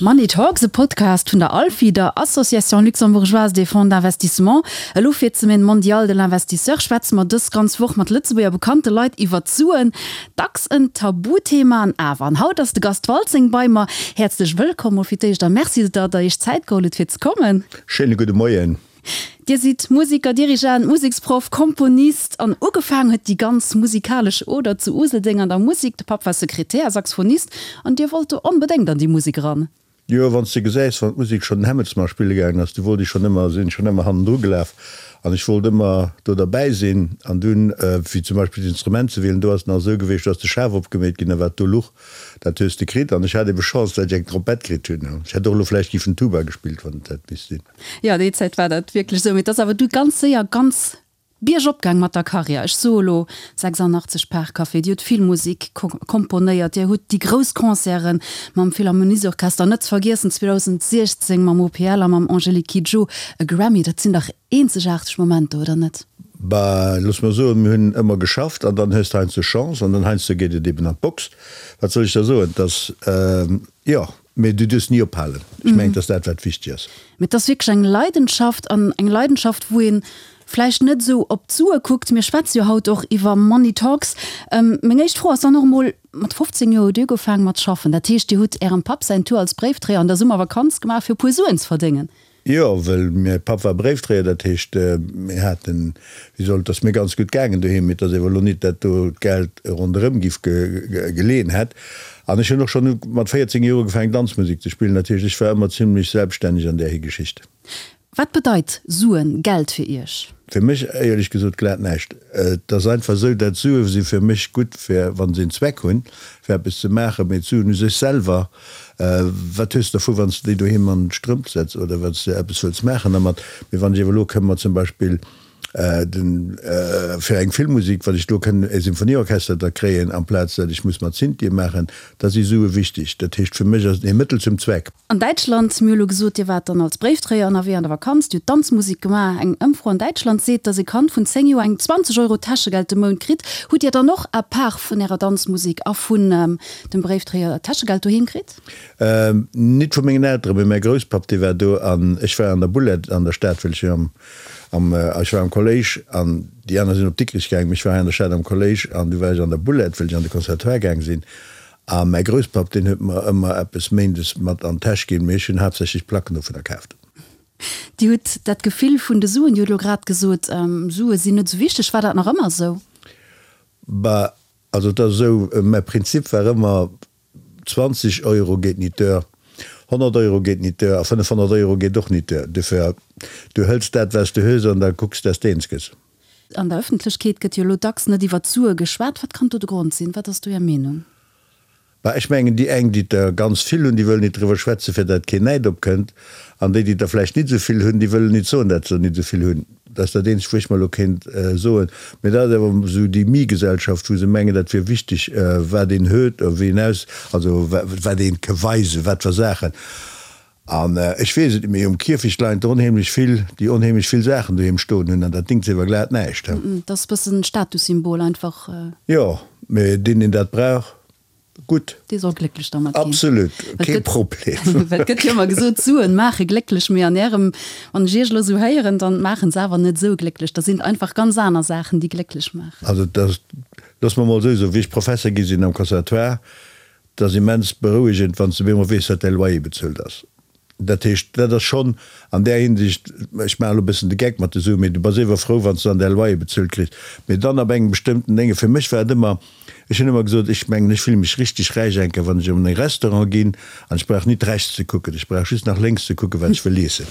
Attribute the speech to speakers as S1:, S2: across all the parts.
S1: Money Talks, e Podcast vun der ALFI, der Association Luxembourgeoise des Fonds d'Investissement. Elo fir d'Semaine mondiale de l'investisseur schwätze mer dës ganz Woch mat Lëtzebuerger bekannte Leit iwwert d'Suen. Dacks en Tabuthema an awer. An haut ass de Gast Waltzing bei mer. Häerzlech wëllkomm mol fir d'éischt a Merci, datt der Iech Zäit geholl hutt fir ze kommen.
S2: Schéine gudde Moien.
S1: Dir sidd Museker, Dirigent, Museksproff, Komponist an ugefaang huet déi ganz musikalesch Oder zu Useldeng an der Musek. De Papp war Sekretär a Saxophonist an Dir wollt do onbedéngt an déi Musek eran.
S2: Jo, wann s de gesäis, wann d'Musek schonn den Hämmelsmarsch spille gaangen ass, du wollt ech schonn ëmmer, sinn schonn ëmmer hannendru gelaf an ech wollt ëmmer do derbäi sinn. An dunn, wéi zum Beispill d'Instrument ze wielen, do ass et nach esou gewiescht, do ass de Schaf opgemeet ginn a wat do luch, dat hues de kritt. An ech hat ebe Chance, dat ech eng Trompett kritt hunn. Ech hätt och elo vläicht giffen Tuba gespillt, wann et hätt misst sinn.
S1: Jo, déi Zäit war dat wierklech esou. Mee et ass awer du ganz séier ganz biergop gaang mat der Karriär. Ech soe lo 86 Parkcafé, Dir hutt vill Musek komponéiert, Dir hutt déi grouss Concerte mam Philharmoniesorchester, net ze vergiessen 2016 mam OPL a mam Angélique Kidjo e Grammy. Dat sinn dach eenzegaarteg Momenter, oder net?
S2: Bah, looss mer soen, mir hunn ëmmer geschafft an dann hues de heiansdo Chance an dann heiansdo geet et eben an d'Box. Wat soll ech da soen? Et ass, jo. Mee du duerfs ni ophalen. Ech mengen, et ass dat, wat wichteg ass.
S1: Mee et ass wierklech eng Leidenschaft an eng Leidenschaft, wou ee vläicht net esou op d'Sue kuckt. Mir schwätze jo haut och iwwer Money Talks. Meng éischt Fro ass dann och emol, Mat 15 Joer hutt Dir ugefaangen mat schaffen. Dat heescht, Dir hutt Ärem Papp säin Tour als Bréifdréier an der Summervakanz gemaach, fir e puer Suen ze verdéngen?
S2: Jo, well mäi Papp war Bréifdréier, dat heescht, mir haten, wéi soll, et ass mir ganz gutt gaangen doheem, mee et ass ewer elo nit, dat do d'Geld ronderëm giff geleeën hätt. An ech hunn och schonn mat 14 Joer ugefaangen Danzmusek ze spillen, dat heescht, ech war ëmmer zimlech selbststänneg an där Geschicht.
S1: Wat bedeit Suen, Geld fir Iech?
S2: Fir mech éierlech gesot glat näischt. Et ass einfach esou, dat Sue si fir mech gutt fir, wa se en Zweck hunn, fir eppes ze maachen, mee d'Suen u sech selwer, Wat hues de dervu wann s de déi doheem an d'Strëmp setz oder wann s de eppes wëlls maachen dermat? Mee wann ech iewer elo kënn mer zum Beispill den fir eng Filmmusik, wann ech do kënn e Symphonieorchester da kréien amplaz dat ech muss mat Synthie maachen, da si Sue wichteg. Dat heescht fir mech ass et e Mëttel zum Zweck.
S1: An Däitschland, mir hu lo gesot, Dir waart dann als Bréifdréier ënnerwee an der Vakanz, Dir hutt Danzmusik gemaach. Eng Ëmfro an Däitschland seet, datt e Kand vun 10 Joer eng 20 Euro Täschegeld de Mount kritt. Hutt Dir dann och à part vun Ärer Danzmusik a vun dem Bréifdréier Täschegeld doheem kritt?
S2: Nit vu mengen Elteren, mee mäi Grousspapp, dee war do an ech war an der Boulette an der Stad, well ech am, am, ech war am Kolléisch an déi aner sinn op Dikrich gaang, mee ech war hei an der Stad am Kolléisch an du war ech an der Boulette, well ech an de Conservatoire gaang sinn. A mäi Grousspapp, deen huet mer ëmmer eppes méindes mat an d'Täsch ginn, mee ech hunn haaptsächlech Placken dovunner kaaft.
S1: Dir hutt dat Gefill vun de Suen, Dir hutt elo grad gesot, Sue sinn net esou wichteg. War dat nach ëmmer esou?
S2: Bah, Also et ass esou, mäi Prinzip war ëmmer, 20 Euro geet nit duer, 100 Euro geet nit duer a 500 Euro geet och nit duer. Dofir, du hëls dat, wat s du hues an da kucks, dass de eens gëss.
S1: An der Ëffentlechkeet gëtt jo elo dacks net iwwer d'Sue geschwat. Wat kann do de Grond sinn? Wat ass do Är Meenung?
S2: Bah, ech mengen, déi eng, déi der ganz vill hunn, déi wëllen nit driwwer schwätzen, fir dat keen Näid opkënnt, an déi, déi der vläicht nit esou vill hunn, déi wëllen nit soen, dat se der nit esou vill hunn. Dat ass dat eenzegt, wou ech mer elo kéint soen. Mee dat ass awer esou déi Mi-Gesellschaft, wou se mengen, dat wier wichteg, wat een huet, wéi een aus, also wat een ke weisen, wat fir Saachen. An ech weess et net, mee um Kierfecht leien der onheemlech vill, déi onheemlech vill Saachen doheem stoen hunn, an dat dingt sewer glat näischt.
S1: Dat ass e bëssen Statussymbol einfach.
S2: Jo, mee deen, deen dat brauch, gutt.
S1: Dee soll glécklech dermat ginn.
S2: Absolut, kee Problem.
S1: Well et gëtt jo ëmmer gesot, Suen maache glécklech, mee an Ärem, wann ech Iech elo esou héieren, dann maachen se awer net esou glécklech. Da sinn et einfach ganz aner Saachen, déi glécklech maachen.
S2: Also, dat, loosse mer mol esou soen, wéi ech Professer gi sinn am Conservatoire, Et ass immens berouegend, wann s de op eemol weess, datt däi Loyer bezuelt ass. Dat heescht, dat ass schonn an där Hinsicht, ech maachen elo e bëssen de Geck mat de Suen, mee du bass ewer frou, wann s de dann däi Loyer bezuelt kriss. Mee dann ab engem bestëmmten Dénge, fir mech war et ëmmer, ech hunn ëmmer gesot, ech mengen, ech fille mech richteg räich enker, wann ech an e Restaurant ginn an ech brauch nit rechts ze kucken, ech brauch just nach lénks ze kucken, wat ech wëll iessen.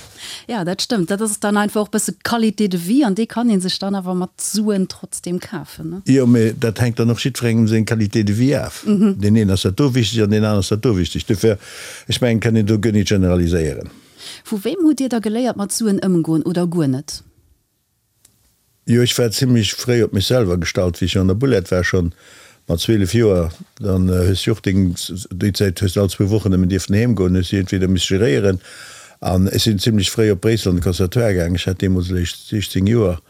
S1: Jo, dat stëmmt. Dat ass dann einfach och e bësse Qualité de vie an déi kann ee sech dann awer mat Suen trotzdeem kafen, ne?
S2: Jo, mee dat hänkt dann och jiddwerengem seng Qualité de vie af. Deen een ass dat do wichteg an deen aneren ass dat do wichteg. Dofir, ech mengen, kann een do guer nit generaliséieren.
S1: Vu wem hutt Dir da geléiert mat Suen ëmgoen oder guer net?
S2: Jo, ech war zimlech fréi op mech selwer gestallt, wéi ech an der Boulette war, schonn mat 12 Joer. Dann hues du och deng, déi Zäit hues du all zwou Wochen nëmmen dierften heem goen, hues du entweder miss geréieren. An ech sinn zimlech fréi op Bréissel an de Conservatoire gaang, ech hat deemools eréischt 16 Joer.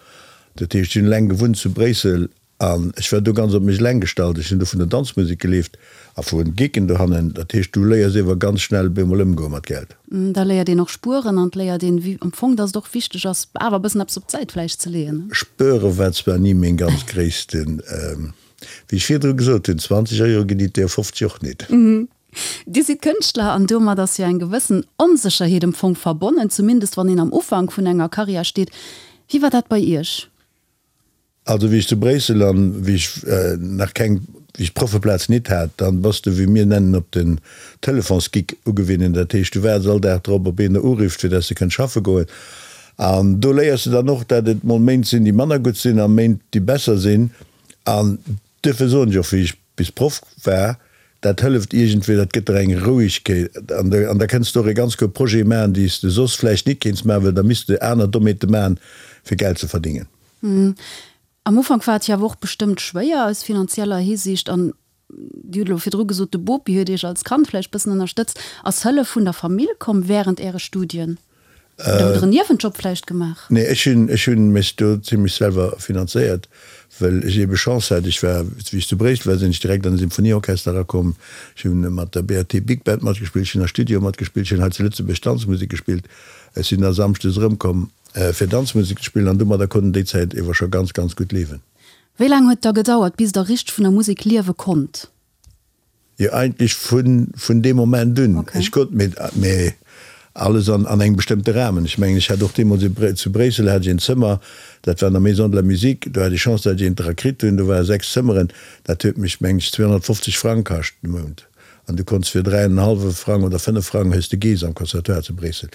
S2: Dat heescht, ech hunn eleng gewunnt zu Bréissel. An ech war do ganz op mech eleng gestallt. Ech hunn do vun der Danzmusek gelieft a vu Geeken dohannen. Dat heescht, du léiers iewer ganz schnell op eemol ëmgoe mat Geld.
S1: Da léiert een och spueren an et léiert een, wéi am Fong, dass et och wichteg ass, awer e bëssen eppes op d'Säit vläicht ze leeën.
S2: Spuere war zwar ni meng ganz gréissten, wéi ech virdru gesot hunn, 20 Euro ginn et der 50 och nit.
S1: Dir sidd Kënschtler an domat ass jo eng gewëssen Onsécherheet am Fong verbonnen, zumindest wann een am Ufank vun enger Karriär steet. Wéi war dat bei Iech?
S2: Also wéi ech zu Bréissel an wéi ech nach keng, wéi ech d'Proffeplaz nit hat, dann bass de wéi mir nennen op den Telefonsgeek ugewinnen. Dat heescht du waarts all Dag drop op een der urifft fir dass de kënns schaffe goen. An do léiers de dann och dat et mol Méint sinn déi manner gutt sinn a Méint déi besser sinn. An duerfir soen ech och wéi ech bis Proff war, dat hëlleft iergendwéi, dat gëtt der eng Rouegkeet an an da kënns de och e ganz guer Projet maachen déi s de soss vläicht nit kéints maachen, well da misst de aner Dommheete maachen fir Geld ze verdingen.
S1: Am Ufank war et jo awer och bestëmmt schwéier aus finanzieller Hisiicht an Dir hutt elo virdru gesot, de Bopi huet Iech als Kand vläicht bëssen ënnerstëtzt. Ass Hëllef vun der Famill komm wärend Äre Studien? Oder hutt Der en Niewenjob vläicht gemaach?
S2: Nee, ech hunn, ech hunn mech do zimlech selwer finanzéiert, well ech eebe Chance hat. Ech war, wéi ech zu Bréissel war, sinn ech direkt an de Symphonieorchester erakomm. Ech hunn mat der BAT Big Band matgespillt, ech hunn a Studioe matgespillt, ech hunn hei zu Lëtzebuerg Danzmusek gespillt. Ech sinn da samschdes erëmkomm. Fir Danzmusek ze spillen an domadder konnt en déi Zäit ewer scho ganz, ganz gutt liewen.
S1: Wéi laang huet da gedauert, bis der richteg vun der Musek liewe konnt?
S2: Jo, eigentlech vun, vun deem Moment un. Ech konnt, mee, mee alles an, an engem bestëmmte Rahmen. Ech mengen, ech hat och deemools e, zu Bréissel hat ech een Zëmmer, dat war an der Maison de la Musique, do hat ech Chance, dat ech eent dra kritt hunn, do ware 6 Zëmmeren, dat huet mech, mengen ech, 250 Frang kascht de Mount. An du konnts fir 3 an en hallwe Frang oder 5 Frang hues de Geess am Conservatoire zu Bréissel.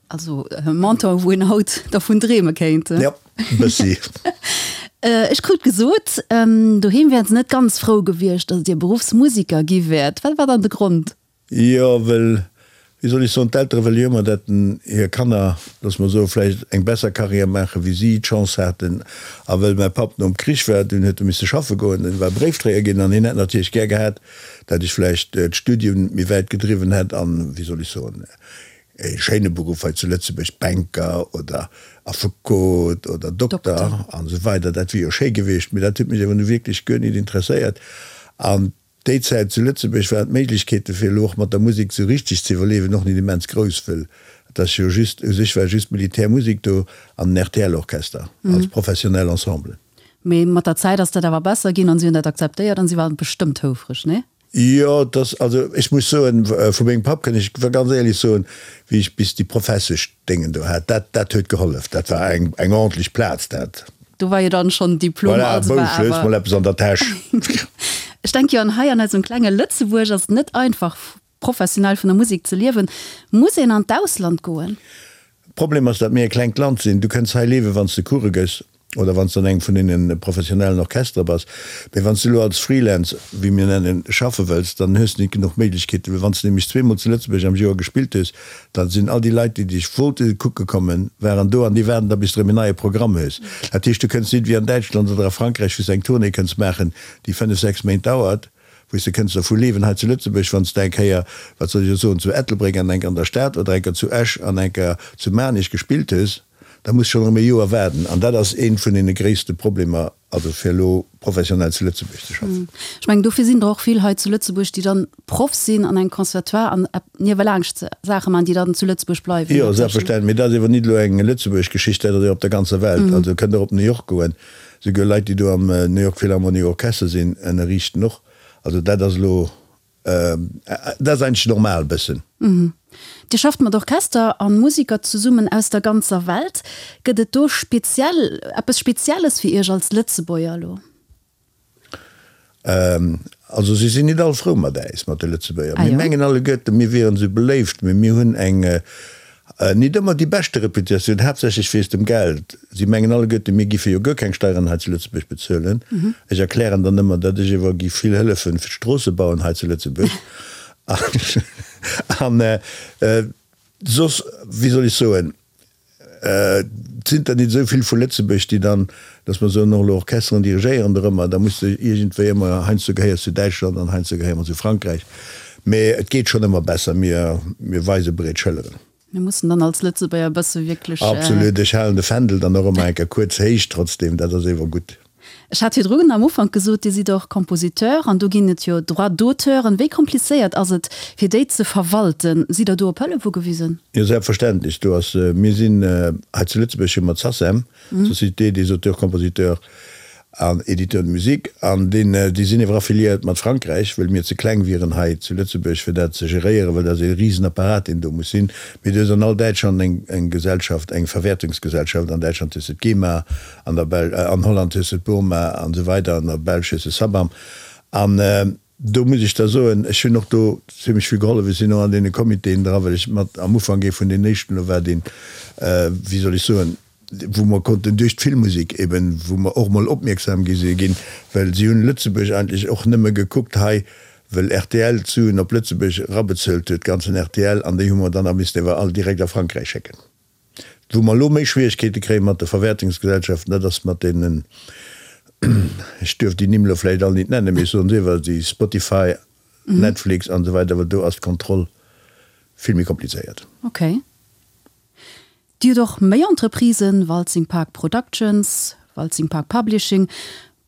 S1: Also e Montant, wou een haut dervun dreeme kéint.
S2: Jo, e bëssi.
S1: Ech krut gesot, doheem wären se net ganz frou gewiescht, datt Dir Beruffsmusiker gi wäert. Wat war dann de Grond?
S2: Jo, well, wéi soll ech soen, d'Eltere wëlle jo ëmmer, datt hir Kanner, loosse mer soen, vläicht eng besser Karriär maachen, wéi si d'Chance haten. A well mäi Papp nom Krich war, dunn huet e misse schaffe goen, en war Bréifdréier ginn an hien hätt natierlech gär gehat, datt ech vläicht d'Studium méi wäit gedriwwen hätt an, wéi soll ech soen, E schéine Beruff hei zu Lëtzebuerg, Banker oder Affekot oder Dokter an esou weider, dat wier jo schéi gewiescht, mee dat huet mech awer nu wierklech guer nit interesséiert. An déi Zäit zu Lëtzebuerg waren d'Méiglechkeete fir elo och mat der Musek esou richteg ze iwwerliewen och nit immens grouss, wëll et ass jo just, u sech war just Militärmusek do an den RTL-Orchester als professionell Ensemble.
S1: Mee mat der Zäit ass dat awer besser ginn an si hunn dat akzeptéiert an si waren bestëmmt houfreg, nee?
S2: Jo, et ass, also ech muss soen, vu mengem Papp kënn ech ganz éierlech soen, wéi ech bis déi Professeschdéngen do hat, dat, dat huet gehollef. Dat war eng, eng ordentlech Plaz, dat.
S1: Do war jo dann schonn Diplom,
S2: Voilà, also war Bousch, hues awer. mol eppes an der Täsch.
S1: Ech denke jo, an hei an eisem klenge Lëtzebuerg ass et net einfach, professionell vun der Musek ze liewen. Muss een an d'Ausland goen?
S2: Problem ass, datt mir e klengt Land sinn. Du kënns hei liewen, wann s de Course gëss oder wann s de an engem vun deene professionellen Orchestere bass. Mee wann s de elo als Freelance, wéi mir nennen, schaffe wëlls, dann hues de net genuch Méiglechkeeten. Well wann s de nämlech zweemol zu Lëtzebuerg am Joer gespillt hues, da sinn all déi Leit, déi dech wollte kucke kommen, waren do an déi waarden da, bis de erëm en neie Programm hues. Dat heescht, du kënns net wéi an Däitschland oder a Frankräich, wou s de eng Tournée kënns maachen, déi fënnef, sechs Méint dauert, wou s de kënns dervu liewen hei zu Lëtzebuerg, wann s de eng Kéier, wat soll ech elo soen, zu Ettelbréck an enker an der Stad oder enker zu Esch an enker zu Maarnech gespillt hues. Da muss schonn erëm e Joer waarden. An dat ass eent vun deene gréisste Problemer, also fir elo professionell zu Lëtzebuerg ze schaffen.
S1: Ech mengen, dofir sinn der och vill hei zu Lëtzebuerg, déi dann Proff sinn an engem Conservatoire an niewelaanscht Saache maachen, déi dann zu Lëtzebuerg bleiwen.
S2: Jo, selbstverständlech. Mee dat ass ewer nit elo eng Lëtzebuerg Geschicht, dat ass ewer op der ganzer Welt. Also kënnt och op New York goen. Souguer Leit, déi do am New York Philharmonic Orchester sinn, ënnerriichten och. Also dat ass elo Dat ass eigentlech normal bëssen.
S1: Dir schafft mat Orchester a Musiker zesummen aus der ganzer Welt. Gëtt et do speziell, eppes Spezielles fir Iech als Lëtzebuerger elo?
S2: Also si sinn nit all frou mat äis, mat de Lëtzebuerger. Mir mengen alleguerten, mir wieren esou beléift, mee mir hunn eng Nit ëmmer déi beschte Reputatioun, haaptsächlech wéinst dem Geld. Si mengen alleguerten, mir giffe jo guer keng Steieren hei zu Lëtzebuerg bezuelen. Ech erklären dann ëmmer, datt ech ewer giff vill hëllefen fir d'Stroosse bauen hei zu Lëtzebuerg. An soss, wéi soll ech soen, et sinn der nit esou vill vu Lëtzebuerg, déi dann, datt mer soen, och elo Orchesteren dirigéieren dorëmmer. Da muss de iergendwéi ëmmer, heiansdo gehéiers zu Däitschland an heiansdo gehéiere mer zu Frankräich. Mee et geet schonn ëmmer besser. Mir, mir weise breet Schëlleren.
S1: Mir mussen dann als Lëtzebuerger e bësse wierklech.
S2: Absolut. Ech halen de Fändel dann och ëmmer eng Kéier kuerz héich trotzdem. Dat ass ewer gutt.
S1: Ech hat virdrun am Ufank gesot, Dir sidd och Compositeur an do ginn et jo Droits d'auteuren. Wéi komplizéiert ass et, fir déi ze verwalten? Sidd Der do op Hëllef ugewisen?
S2: Jo, selbstverständlech. Do ass, mir sinn hei zu Lëtzebuerg hu mer d'SACEM, Société des auteurs, compositeurs an éditeurs de musique, an deen, déi sinn ewer affiliéiert mat Frankräich, wëll mir ze kleng wieren hei zu Lëtzebuerg fir dat ze geréieren, well dat ass ee Risenapparat deen do muss sinn. Mee du hues an all Däitschland eng, eng Gesellschaft, eng Verwäertungsgesellschaft, an Däitschland hues de d'GEMA, an der Bel, an Holland hues de d'BURMA an esou weider, an der Belsch hues de SABAM. An do muss ech da soen, ech hunn och do zimlech vill gehollef, ech sinn och an deene Comitéen dra, well ech mat am Ufank ee vun den éischten elo war, deen, wéi soll ech soen, wou mer konnten duerch d'Filmmusek eben, wou mer och mol opmierksam gi si ginn, well si hunn Lëtzebuerg eigentlech och nëmme gekuckt hei, well rtl d'Suen op Lëtzebuerg erabezuelt huet, ganzen rtl, an déi hu mer dann a missten ewer all direkt a Frankräich schécken. Wou mer elo méi Schwierigkeete kréie mat de Verwäertungsgesellschaften, dat ass mat deenen, ech duerf déi Nimm elo vläicht all nit nennen, mee ech soen se ewer, déi Spotify, Netflix an esou weider, well do ass d'Kontroll vill méi komplizéiert.
S1: Okay. Dir hutt och méi Entreprisen, Waltzing Park Productions, Waltzing Park Publishing.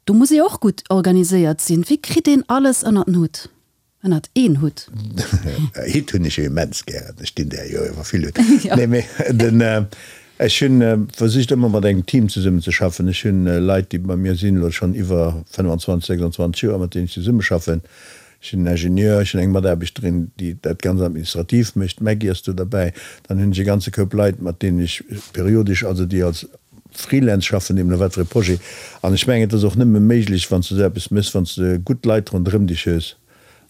S1: Do muss ee och gutt organiséiert sinn. Wéi kritt een alles ënnert den Hutt, ënnert een Hutt?
S2: Hitt hunn ech jo immens gären. Ech dinn där jo iwwer vill Hutt. Nee, mee den, ech hunn versicht ëmmer mat engem Team zesummen ze schaffen. Ech hunn Leit, déi bei mir sinn elo schonn iwwer 25, 26 Joer, mat deenen ech zesummeschaffen. Ech hunn en Ingenieur, ech hunn eng Mataarbechterin, déi dat ganz administrativ mécht, d'Maggy ass do derbäi. Dann hunn ech e ganze Koup Leit, mat deenen ech periodesch, also déi als Freelance schaffen, deemno wat fir e Projet. An ech mengen, et ass och nëmme méiglech, wann s de esou eppes méchs, wann s de gutt Leit ronderëm dech hues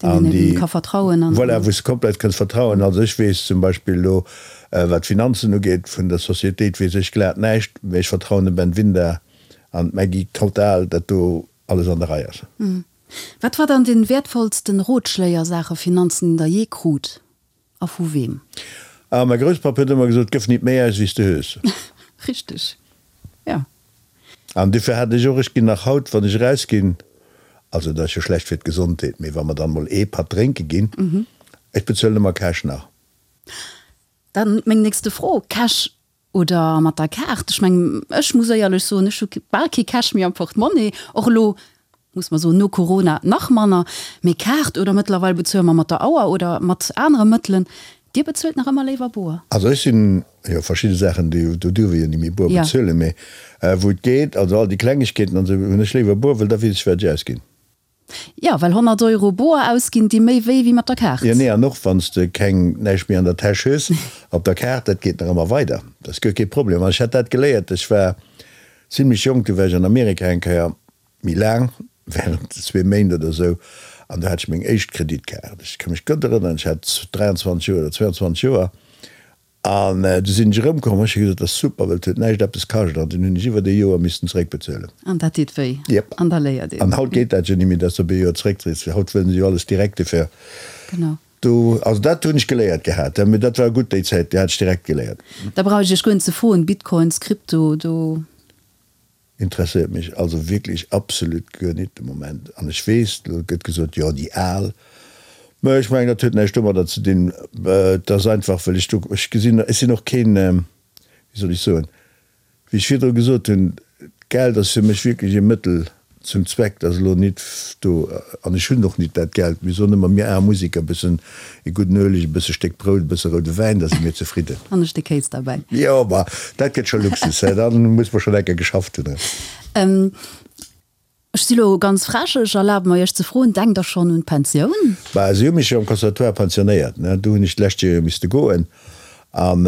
S1: an déi, ka vertrauen.
S2: Voilà, wou s de komplett kënns vertrauen. Also ech weess zum Beispill elo, wat d'Finanzen ugeet vun der Societéit, weess ech glat näischt, mä ech vertrauen dem Ben Winder an d'Maggy total, datt do alles an der Rei ass.
S1: Wat war dann den wäertvollsten Rotschléi a Saache Finanzen, den der jee krut a vu weem?
S2: Ah, mäi Grousspapp huet ëmmer gesot, Gëff nit méi aus, wéi s de hues.
S1: Richteg, jo.
S2: An dofir hat ech och, ech ginn nach haut, wann ech erausginn, also dat ass jo schlecht fir d'Gesondheet, mee wa mer dann mol ee Patt drénke ginn, ech bezuelen ëmmer Cash nach.
S1: Dann meng nächste Fro, Cash Oder mat der Kaart. Ech mengen, ech muss éierlech soen, ech hu bal kee Cash méi am Portemonnaie. Och elo, muss mer soen, no Corona nach manner. Mee Kaart oder mëttlerweil bezuele mer mat der Auer oder mat anere Mëttelen. Dir bezuelt nach ëmmer léiwer boer?
S2: Also ech sinn, jo, verschidde Saachen, déi, do duerf ee jo ni méi boer bezuelen, mee wou et geet, also all déi Klengegkeeten an esou, hunn ech léiwer boer, well da weess ech, wat ech ausginn.
S1: Jo, well 100 Euro boer ausginn di méi wéi wéi mat der Kaart.
S2: Jo, nee, an och wann s de keng, näischt méi an der Täsch hues, op der Kaart, dat geet nach ëmmer weider, dat ass guer kee Problem. An ech hat dat geléiert, ech war zimlech jonk, du war ech an Amerika eng Kéier, méi laang, während zwee Méint oder esou, an do hat ech meng éischt Kreditkaart. Ech ka mech gutt erënneren, ech hat 23 Joer oder 22 Joer, An du sinn ech erëmkomm, hu ech gesot, dat ass super, well et huet näischt eppes kascht. An dunn hunn ech iwwert ee Joer missten zeréckbezuelen.
S1: An dat deet wéi.
S2: Jep.
S1: An da léiert een.
S2: An haut geet dat jo net méi, dass de op ee Joer zeréckzees. Haut wëllen se jo alles direkt dofir.
S1: Genau.
S2: Do, also dat hunn ech geléiert gehat. Mee dat war gutt déi Zäit, déi hat ech direkt geléiert.
S1: Da brauch ech Iech guer net ze froen, Bitcoins, Krypto, do.
S2: Interesséiert mech also wierklech absolut guer nit de Moment. An ech weess, elo gëtt gesot, jo déi Al. Mä ech mengen, dat huet näischt domadder ze dinn. Et ass einfach, well ech do, ech gesinn, ech sinn och keen, wéi soll ech soen, wéi ech virdru gesot hunn, d'Geld ass fir mech wierklech e Mëttel zum Zweck. Dat ass elo nit do, an ech hunn och nit dat Geld. Mir soen ëmmer, mir aarm Museker, e bëssen e gudden Ueleg, e bësse Stéck Brout, e bësse roude Wäin, da si mir zefridden.
S1: An e Stéck Kéis derbäi.
S2: Jo, ma dat gëtt scho Luxus, hä? Da muss mer schonn enker geschafft hunn,
S1: hä? Ech si lo ganz frech, ech erlabe mer Iech ze froen, Denkt Der schonn un d'Pensioun?
S2: Bah, si hu mech jo am Conservatoire pensionéiert, ne? Do hunn ech d'lescht Joer jo misste goen. An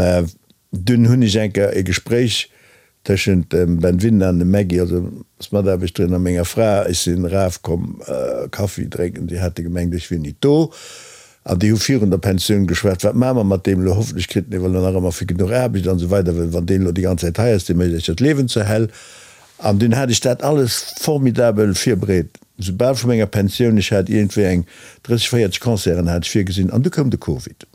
S2: Dunn hunn ech eng Kéier e Gespréich tëschent dem Ben Winder an dem Maggy, also ass Mataarbechterin, a menger Fra. Ech sinn eraf komm Kaffi drénken, déi hate gemengt ech wier nit do. An déi hu virun der Pensioun geschwat, wat maache mer mat deem elo, hoffentlech kritt en ewell nach ëmmer fir genuch Aarbecht an esou weider, well wann deen elo déi ganz Zäit hei ass, dee mécht eis jo d'Liewen zur Hell. An dunn hat ech dat alles formidabel virbereet, soubal vu menger Pensioun, ech hat iergendwéi eng 30, 40 Concerten hat ech virgesinn, an du koum de Covid.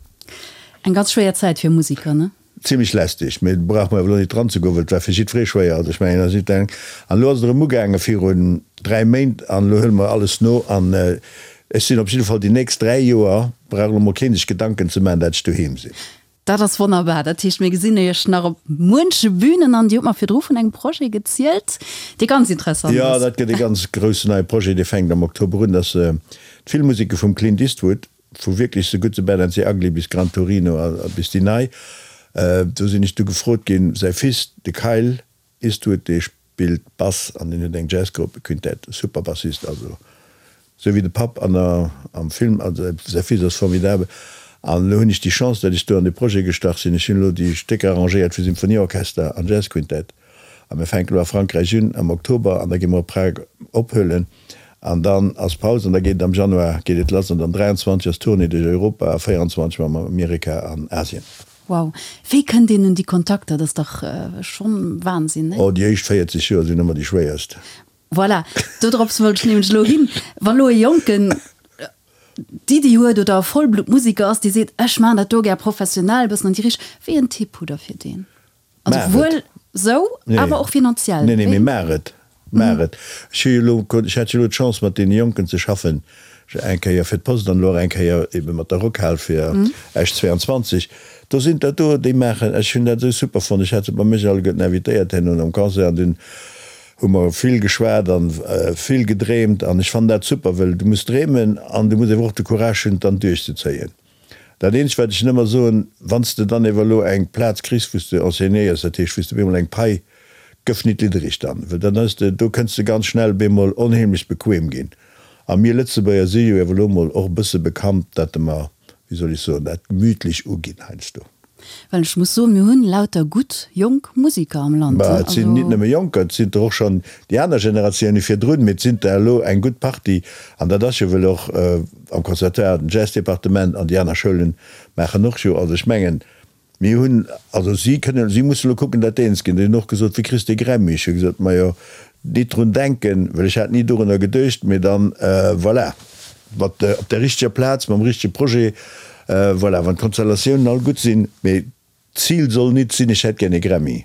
S1: Eng ganz schwéier Zäit fir Musiker, ne?
S2: Zimlech lästeg, mee do brauche mer awer elo nit dran ze goen, well et war fir jiddweree schwéier. Also ech mengen, dat ass nit eng. An elo ass et erëm ugaange virun 3 Méint an elo huele mer alles no an ech sinn op jidde Fall déi nächst 3 Joer, brauch elo mol keen sech Gedanken ze maachen, dat ech doheem sinn.
S1: Dat ass wonnerbar. Dat heescht, mir gesinn Iech nach op muenche Bünen an Dir hutt mer virdru vun engem Projet gezielt, dee ganz interessant
S2: ass. Jo, dat gëtt e ganz groussen neie Projet, dee fänkt am Oktober un. Dat ass d'Filmmuseke vum Clint Eastwood, vu wierklech The Good, The Bad and The Ugly bis Gran Torino a bis déi nei. Do sinn ech du gefrot ginn, säi Fils, de Kyle Eastwood, dee spillt Bass an deen huet eng Jazzgrupp, e Quintett, e super Bassist, also esou wéi de Papp an der, am Film, also säi Fils ass formidabel. An elo hunn ech déi Chance, datt ech do an dee Projet gestach sinn. Ech hunn elo déi Stécker arrangéiert fir Symphonieorchester an Jazzquintett a mir fänken elo a Frankräich un am Oktober an da gi mer op Prag ophuelen an dann ass Paus an da geet et am Januar geet et lass an dann 23 ass Tournée duerch Europa a 24 mam Amerika an Asien.
S1: Wow, wéi kënnt een un déi Kontakter? Dat ass dach schonn Wahnsinn, nee?
S2: Oh, déi éischt 40 Joer sinn ëmmer déi schwéierst.
S1: Voilà, dodrops wollt ech nämlech elo hin. Wa lo e Jonken d'Iddi huet oder e Vollbluttmusiker ass, dee seet, ech maachen dat do gär professionell, e bëssen an déi Richt, wéi en Tipp hutt Der fir deen? Also
S2: Maach et.
S1: wuel sou, awer och finanziell.
S2: Nee, nee, mee maach et. Maach et. Ech hu jo elo, ech hat jo elo d'Chance mat deene Jonken ze schaffen, eng Kéier fir d'Post an elo och eng Kéier ebe mat der Rockhal fir Esch 22. Do sinn der do, déi maachen, ech hunn dat esou super fonnt, ech hat se bei mech alleguerten invitéiert herno nom Concert an dunn hu mer vill geschwat an vill gedreemt an ech fannen dat super, wëll du muss dreemen an du muss ewer och de Courage hunn et dann duerchzezéien. Dat eenzegt wat ech nëmmer soen, wann s de dann ewer elo eng Plaz kriss wou s de enseignéiers, dat heescht wou s de bemol eng Pai, gëff nit liddereg dann, well dann hues de, do kënns de ganz schnell bemol onheemlech bequem ginn. A mir Lëtzebuerger si jo ewer elo mol och e bësse bekannt, dat mer, wéi soll ech soen, dat gemütlech uginn heiansdo.
S1: Well ech muss soen, mir hunn lauter gutt jonk Musiker am Land.
S2: Bah, et sinn nit nëmme Jonker, et sinn der och schonn déi aner Generatioune virdrun, mee et sinn der elo eng gutt Partie. An dat ass jo, wëll och am Conservatoire den Jazzdepartement an déi aner Schoulen maachen och jo. Also ech mengen, mir hunn, also si kënnen, si mussen elo kucken, dat eens ginn. Déi hunn och gesot, Wéi kriss de Grammy? Ech hu gesot, Majo, nit drun denken, well ech hat ni dorunner geduecht, mee dann, voilà. Mat op der richteger Plaz, mam richtege Projet, voilà, wann d'Konstellatiounen all gutt sinn. Mee d'Zil soll nit sinn, ech hätt gär e Grammy.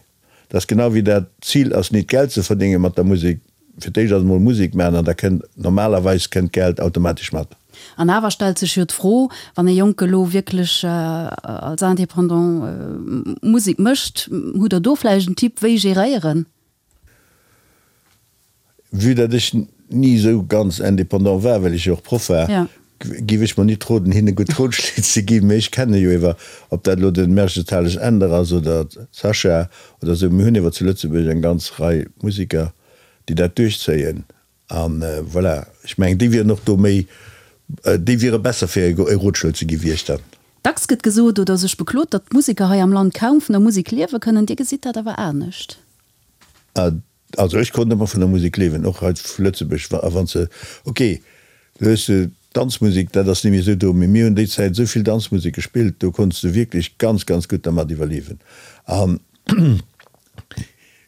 S2: Dat ass genau wéi dat, d'Zil ass nit Geld ze verdénge mat der Musek. Fir d'éischt ass emol Musek maachen an da kënnt, normalerweis kënnt d'Geld automatesch mat.
S1: An awer stellt sech jo d'Fro, wann e Jonke lo wierklech als Indépendant Musek mécht, hutt Der do vläicht en Tipp, wéi geréieren?
S2: Vue datt ech ni esou ganz indépendant war, well ech jo och Proff war, giff ech mer nit roden hinne gutt Rotschléi ze ginn. Mee ech kenne jo ewer, ob dat elo den Mergenthaler Änder ass oder d'Sascha oder esou, mir hunn ewer zu Lëtzebuerg eng ganz Rei Musiker, déi dat duerchzéien. An voilà, ech mengen déi wieren och do méi, déi wiere besser fir e Rotschlo ze gi wéi ech dann.
S1: Dacks gëtt gesot oder sech beklot, datt d'Museker hei am Land kaum vun der Musek liewe kënnen. Dir gesitt dat awer anescht.
S2: Also ech konnt ëmmer vun der Musek liewen, och hei vu Lëtzebuerg. A wann se, ok, do hues de Danzmusek, dat ass net méi esou do, mee mir hunn déi Zäit esou vill Danzmusek gespillt, do konns de wierklech ganz, ganz gutt dermat iwwerliewen. An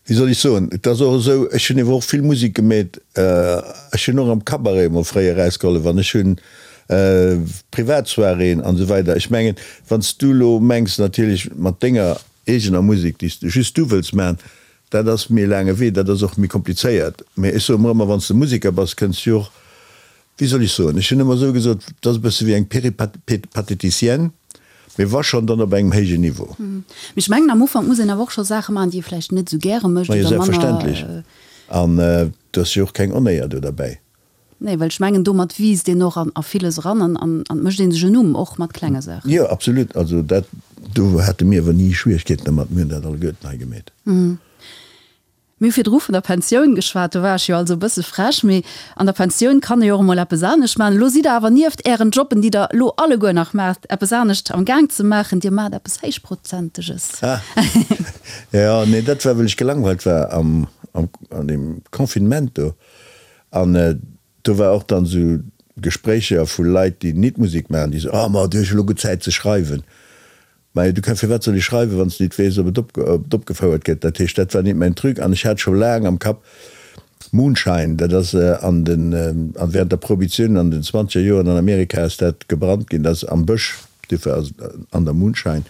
S2: wéi soll ech soen, et ass och esou, ech hunn ewer och vill Musek gemeet, ech hunn och am Cabaret emol fréier erausgehollef an ech hunn Privatsoiréeën an esou weider. Ech mengen, wann s du elo mengs natierlech mat denger eegener Musek, déi s de just du wëlls maachen, Dat ass méi e laange Wee, dat ass och méi komplizéiert. Mee ech soe mer ëmmer, wann s de Museker bass, kënns du jo och, wéi soll ech soen, ech hunn ëmmer esou gesot, et ass e bësse wéi eng Péripatéticienne, mee wa schonn, dann op engem héijen Niveau.
S1: Mee ech mengen, am Ufank muss een awer och scho Saache maachen, déi ee vläicht net esou gäre mécht
S2: oder manner. Majo, selbstverständlech. An et ass jo och keng Onéier do derbäi.
S1: Nee, well ech mengen, domat wiisst een och a villes eran an an et mécht ee sech en Numm, och mat klenge Saachen.
S2: Jo, absolut. Also dat, do hate mir awer ni Schwierigkeeten dermat. Mir hunn dat alleguerten hei gemeet.
S1: Mir hu virdru vun der Pensioun geschwat, do war ech jo also e bësse frech, mee an der Pensioun kann ee jo och emol eppes anescht maachen. Elo sidd Der awer nieft Ären Jobben, déi Der elo alleguer nach maacht, eppes anescht am Gaang ze maachen. Dir maacht eppes Héichprozenteges.
S2: Ah, jo, nee, dat war, well ech gelangweilt war am, am, an deem Confinement do. An do war och dann esou Gespréicher vu Leit, déi nit Musek maachen, déi soen, oh ma du hues jo elo gutt Zäit ze schreiwen. Majo, du kann, firwat soll ech schreiwen, wann s de nit weess, ob et opgefouert gëtt? Dat heescht, dat war nit mäin Truc. An ech hat scho laang am Kapp Moonshine, dat ass an den, an während der Prohibitioun an den zwanzeger Joren an Amerika ass dat gebrannt ginn, dat ass am Bësch, Duerfir ass et an der Moonshine.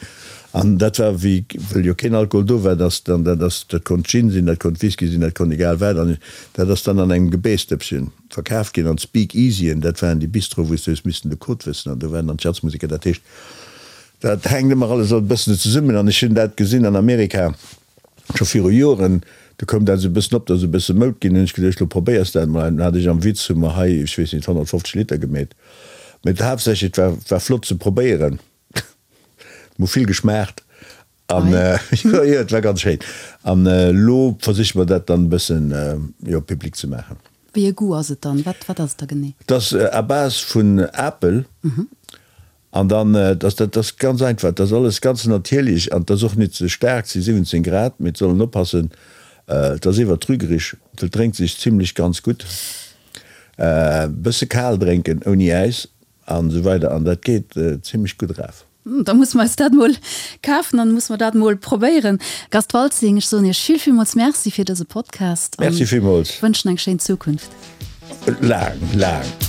S2: An dat war wéi, wëll jo keen Alkohol do war, dass dann, dat ass, dat konnt Gin sinn, dat konnt Whisky sinn, dat konnt egal wat, an dat ass dann an engem Gebäsdëppchen verkaf ginn. An d'Speakeasyen, dat waren déi Bistroe wou s du hues missen de Code wëssen, an do waren dann d'Jazzmuseker. Dat heescht. Dat hänkt ëmmer alles e bëssen zesummen an ech hunn dat gesinn an Amerika scho viru Joren, do koum dat esou e bëssen op, dat ass e bësse Moud ginn, hunn ech geduecht, lo probéiers dat emol. An dann hat ech am Witz, hu mer hei, ech weess nit, 150 Liter gemeet. Mee haaptsächlech, et war, war flott ze probéieren, et hu vill geschmaacht an jo, jo, et war ganz schéin. An elo versiche mer dat dann e bëssen, jo, public ze maachen.
S1: Wéi e Goût ass et dann? Wat, wat ass et da genee?
S2: Et ass à base vun Apel. An dann, dass dat ass ganz einfach, dat ass alles ganz natierlech an et ass och net ze staark, et si 17 Grad, mee et soll een oppassen, et ass iwwer trügerich, et drénkt sech zimlech ganz gutt, e bësse kal drénken ouni Äis an esou weider an dat geet zimlech gutt eraf.
S1: Da musse mer eis dat mol kafen an musse mer dat mol probéieren. Gast Waltzing, ech soen Iech vill villmools Merci fir dëse Podcast
S2: an
S1: wënschen eng schéin Zukunft.
S2: Laang, laang.